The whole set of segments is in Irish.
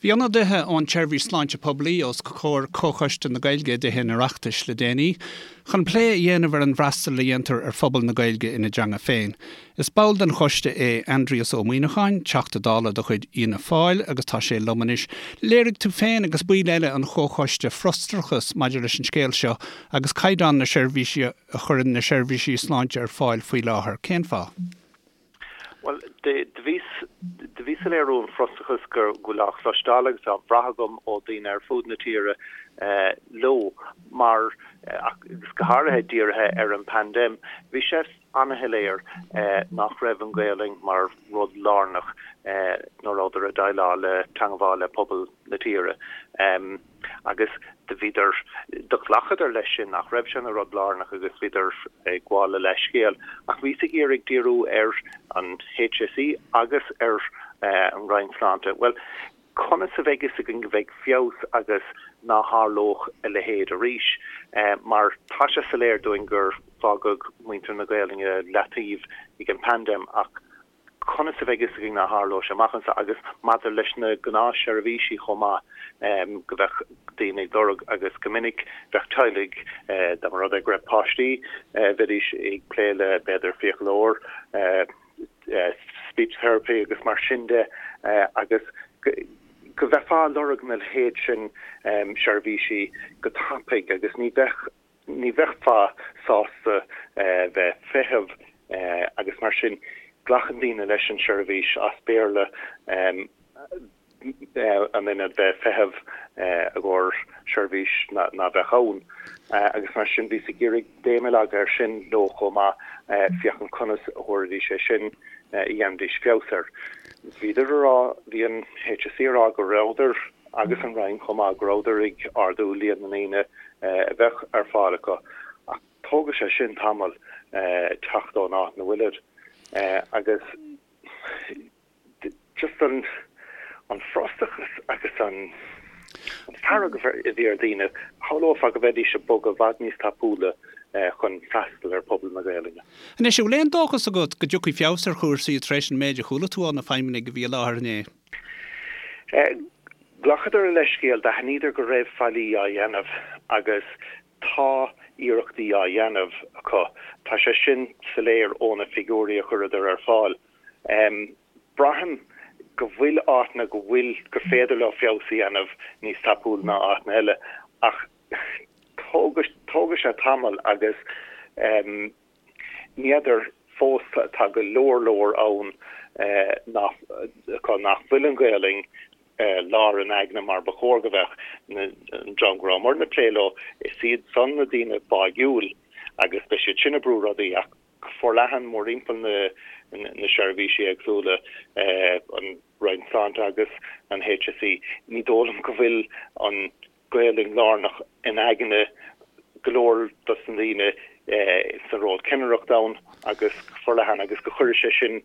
Bhí ionadaithe ón tSeirbhís Sláinte Poiblí os comhair Comhchoiste na Gaeilge i dTithe an Oireachtais le déanaí chun plé a dhéanamh ar an bhfreastal a dhéantar ar phobal na Gaeilge ina dteanga féin. Is ball den choiste é Aindrias Ó Muimhneacháin, Teachta Dála de chuid Fhianna Fáil agus tá sé liom anois. Léirigh tú féin agus baill eile an chomhchoiste frustrachas maidir leis an scéal seo agus caighdeán na seirbhísí a chuireann na seirbhísí sláinte ar fáil faoi láthair. Cén fáth? Bhuel, do bhí, do bhí soiléiriú an frustrachas go bhfuil á chloisteáil agus á bhrath agam ó daoine ar fud na tíre leo mar, agus go háirithe dírithe ar an bpaindéim, bhí sé an-shoiléir nach raibh an Ghaelainn mar rud lárnach nuair a rabhadar ag déileáil le teangmháil le pobal na tíre. Agus do bhíodar, do ghlacadar leis sin, nach raibh sé ina rud lárnach agus bhíodar ag gabháil a leithscéal. Ach bhíos ag iarraidh díriú ar an HSE agus ar an Roinn Sláinte. Bhuel, conas a bheidh fhios againn go mbeidh feabhas agus ná tharlódh a leithéid arís? Mar tá sé soiléir dúinn gur fágadh muintir na Gaelainne leataobh ag an bpaindéim ach Conas a bheidh fhios againn ná tharlóidh sé amach anseo agus maidir leis na gnáthsheirbhísí chomh maith, go bheadh daoine ag lorg agus go minic bheadh teaghlaigh, dá mba rud é go raibh páistí, bheidís ag plé le b'fhéidir fiaclóir, speech therapy agus mar sin de agus go bheifeá ag lorg na leithéid sin seirbhísí go tapaidh agus ní bheadh Ní bheifeá sásta bheith ag feitheamh agus mar sin glacann daoine leis an seirbhís as Béarla in ionad bheith ag feitheamh i gcomhair seirbhís ná bheadh ann agus mar sin bhíos ag iarraidh béim a leagadh air sin leo chomh maith féachaint conas a thabharfaidís é sin a dhéanfaidís feabhas air. Bhíodar a rá, bhí an HSE a rá go rabhadar agus an Roinn chomh maith, go rabhadar ag ardú líon na ndaoine a bheadh ar fáil acu, ach tógfaidh sé sin tamall teacht ón áit 'na bhfuilid agus just an an frustrachas agus an fearg a bhí ar dhaoine, shamhlófá go mbeidís ag bogadh i bhfad níos tapúla chun freastal ar phobal na Gaelainne. Anois, an bhfuil aon dóchas agat go dtiocfaidh feabhas ar chúrsaí tar éis an méid a chuala tú ó na feidhmeannaigh a bhí i láthair inné? Ghlacadar a leithscéal, d'aithníodar go raibh faillí á dhéanamh agus tá iarrachtaí á dhéanamh acu. Tá sé sin soiléir ó na figiúirí a chuireadar ar fáil. Braithim go bhfuil áiteanna go bhfuil, gur féidir leo feabhas a dhéanamh níos tapúla ná áiteanna eile ach tógfaidh sé tamall agus Ní fheadar fós, tá go leor leor ann nach acu nach bhfuil an Ghaelainn lár a n-aigne mar ba chóir go bheadh. An dream go rabhamarna ag plé leo, is iad san na daoine báigiúil agus beidh siad sin ag brú rudaí ach go forleathan mórthimpeall na seirbhísí éagsúla, an Roinn Sláinte agus an HSE, ní dóigh liom go bhfuil an Gaelainn lárnach in aigne go leor dos na daoine sa ról cinnireachta ann agus go forleathan agus go chuirfidh sé sin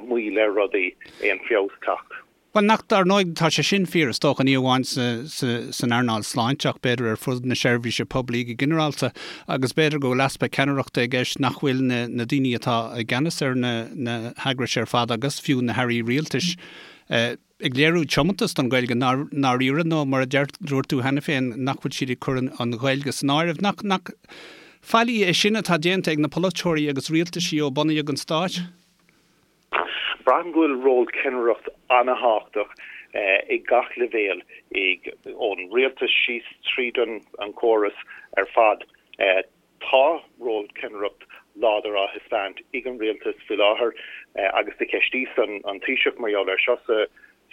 moill ar rudaí, aon feabhas teacht. Bhuel, nach, dar ndóigh, tá sé sin fíor, is dócha, ní amháin san earnáil sláinte ach b'fhéidir ar fud na seirbhíse poiblí go ginearálta agus b'fhéidir go bhfuil easpa ceannaireachta i gceist, nach bhfuil na daoine atá i gceannas ar na heagrais ar fad agus fiú na hairí rialtais, ag léiriú tiomantas don Ghaeilge i ndáiríre nó, mar a deir, dúirt tú cheana féin, nach bhfuil siad ag cur an Ghaeilge san áireamh. Nach, nach faillí é sin atá déanta ag na polaiteoirí agus rialtaisí ó bunaíodh an Stát? Braithim go bhfuil ról ceannaireacht an-thábhachtach ag gach leibhéal, ag, ón rialtas síos tríd an an córas ar fad. Tá ról ceannaireacht láidir á thaispeáint ag an rialtas faoi láthair agus do cheistíos an Taoiseach mar gheall air seo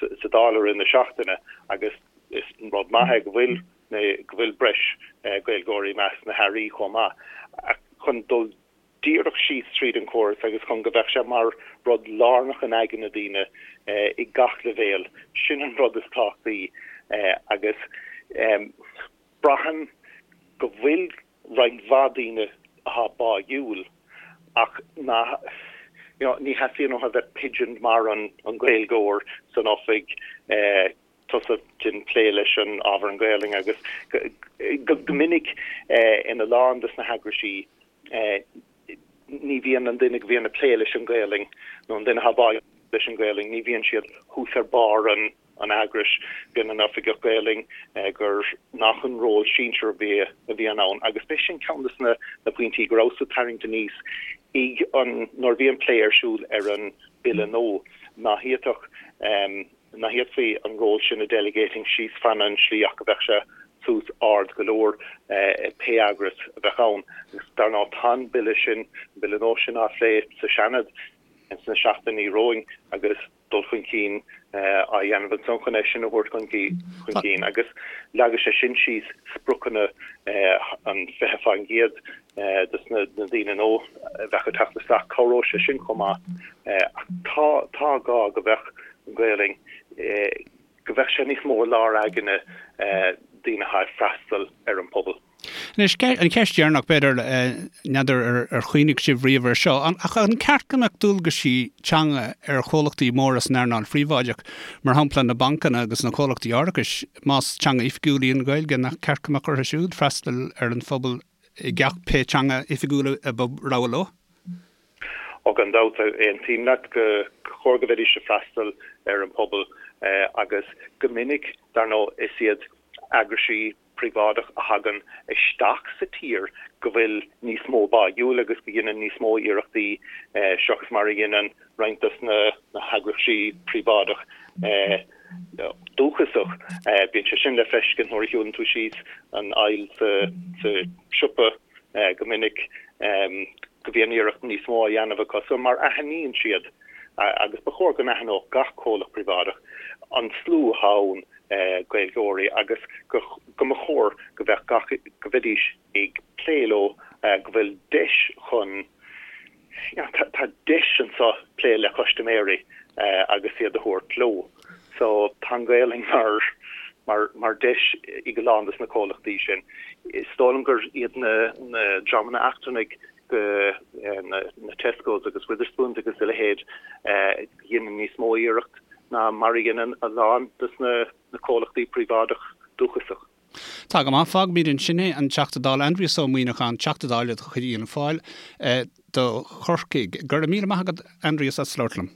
sa Dáil i rith na seachtaine agus is rud maith é go bhfuil go bhfuil breis Gaeilgeoirí i measc na hairí chomh maith. Ach chun dul díreach síos tríd an chóras agus chun go bheadh sé mar rud lárnach in aigne daoine ag gach leibhéal, sin an rud is tábhachtaí agus braithim go bhfuil roinnt mhaith daoine atá báigiúil ach nach, you know, ní theastaíonn uathu a bheith pigeoned mar an an Gaeilgeoir san oifig, tusa déan plé leis an ábhar an Ghaelainn agus go go minic ina lán des na heagraisí ní bhíonn an duine go bhíonn ag plé leis an Ghaelainn nó an duine atá báigiúil leis an Ghaelainn, ní bhíonn siad thuas ar barr an. an eagrais, bíonn an Oifigeach Gaelainn, gur nach an ról sinsear a bhíonn ann agus b'é sin ceann de na pointí go rabhas ag tarraingt aníos ag an nuair a bhí an plé ar siúl ar an Bille nua, ná fhéadfadh ná fhéadfaí an ról sin a delegating síos fan an slí ach go bheadh sé suas ard go leor pé eagras a bheadh ann. Agus dar ndóigh tá an Bille sin, an Bille nua sin á phlé sa Seanad ins na seachtainí romhainn agus dul chun cinn á dhéanamh ansan chun é sin a thabhairt chun cinn agus leagfaidh sé sin síos spriocanna an 20% dos na daoine nua a bheadh ag teacht isteach. Cabhróidh sé sin chomh maith. Ach tá tá gá go mbeadh an Ghaelainn, go mbeadh sé níos mó i lár aigne daoine atá ag freastal ar an pobal. Anois, an cheist dheireanach, b'fhéidir, n'fheadar ar chuimhnigh sibh riamh air seo, ach an ceart go mbeadh dualgaisí teanga ar chomhlachtaí móra san earnáil phríobháideach, mar shampla na bancanna agus na comhlachtaí árachais, más teanga oifigiúil í an Ghaeilge, nach ceart go mbeadh orthu siúd freastal ar an phobal i gceacht pé teanga oifigiúil a ba rogha leo? Ó gan dabht, aontaím leat gur chóir go mbeidís ag freastal ar an pobal agus go minic, dar ndóigh, is iad eagraisí príobháideach a thagann isteach sa tír go bhfuil níos mó báúil agus go dhéanann níos mó iarrachtaí seachas mar a dhéanann roinnt dos na heagraisí príobháideach dúchasach. Bíonn sé sin le feiscint nuair a shiúlann tú síos an aisle sa siopa go minic go mbíonn iarracht níos mó á dhéanamh acu so mar aithníonn siad agus ba chóir go n-aithneodh gach comhlacht príobháideach an slua atá ann Gaeilgeoirí agus go mba chóir go mbeadh gach, go mbeidís ag plé leo, go bhfuil deis chun, you know, tá deis anseo plé le custaiméirí agus iad a thabhairt leo. So tá an Ghaelainn mar, mar, mar deis ag a lán dos na comhlachtaí sin. Is dóigh liom gur iad na, na dreamanna eachtrannaigh go, na, na Tescos agus Wetherspoons agus a leithéid, a dhéanann níos mó iarracht ná mar a dhéanann a lán dos na comhlachtaí príobháideach dúchasach. Tá go maith. Fágfaimid ansin é. An Teachta Dála Aindrias Ó Muíneacháin, Teachta Dála de chuid Fhianna Fáil do Chorcaigh. Go raibh míle maith agat, Aindrias, as labhairt liom.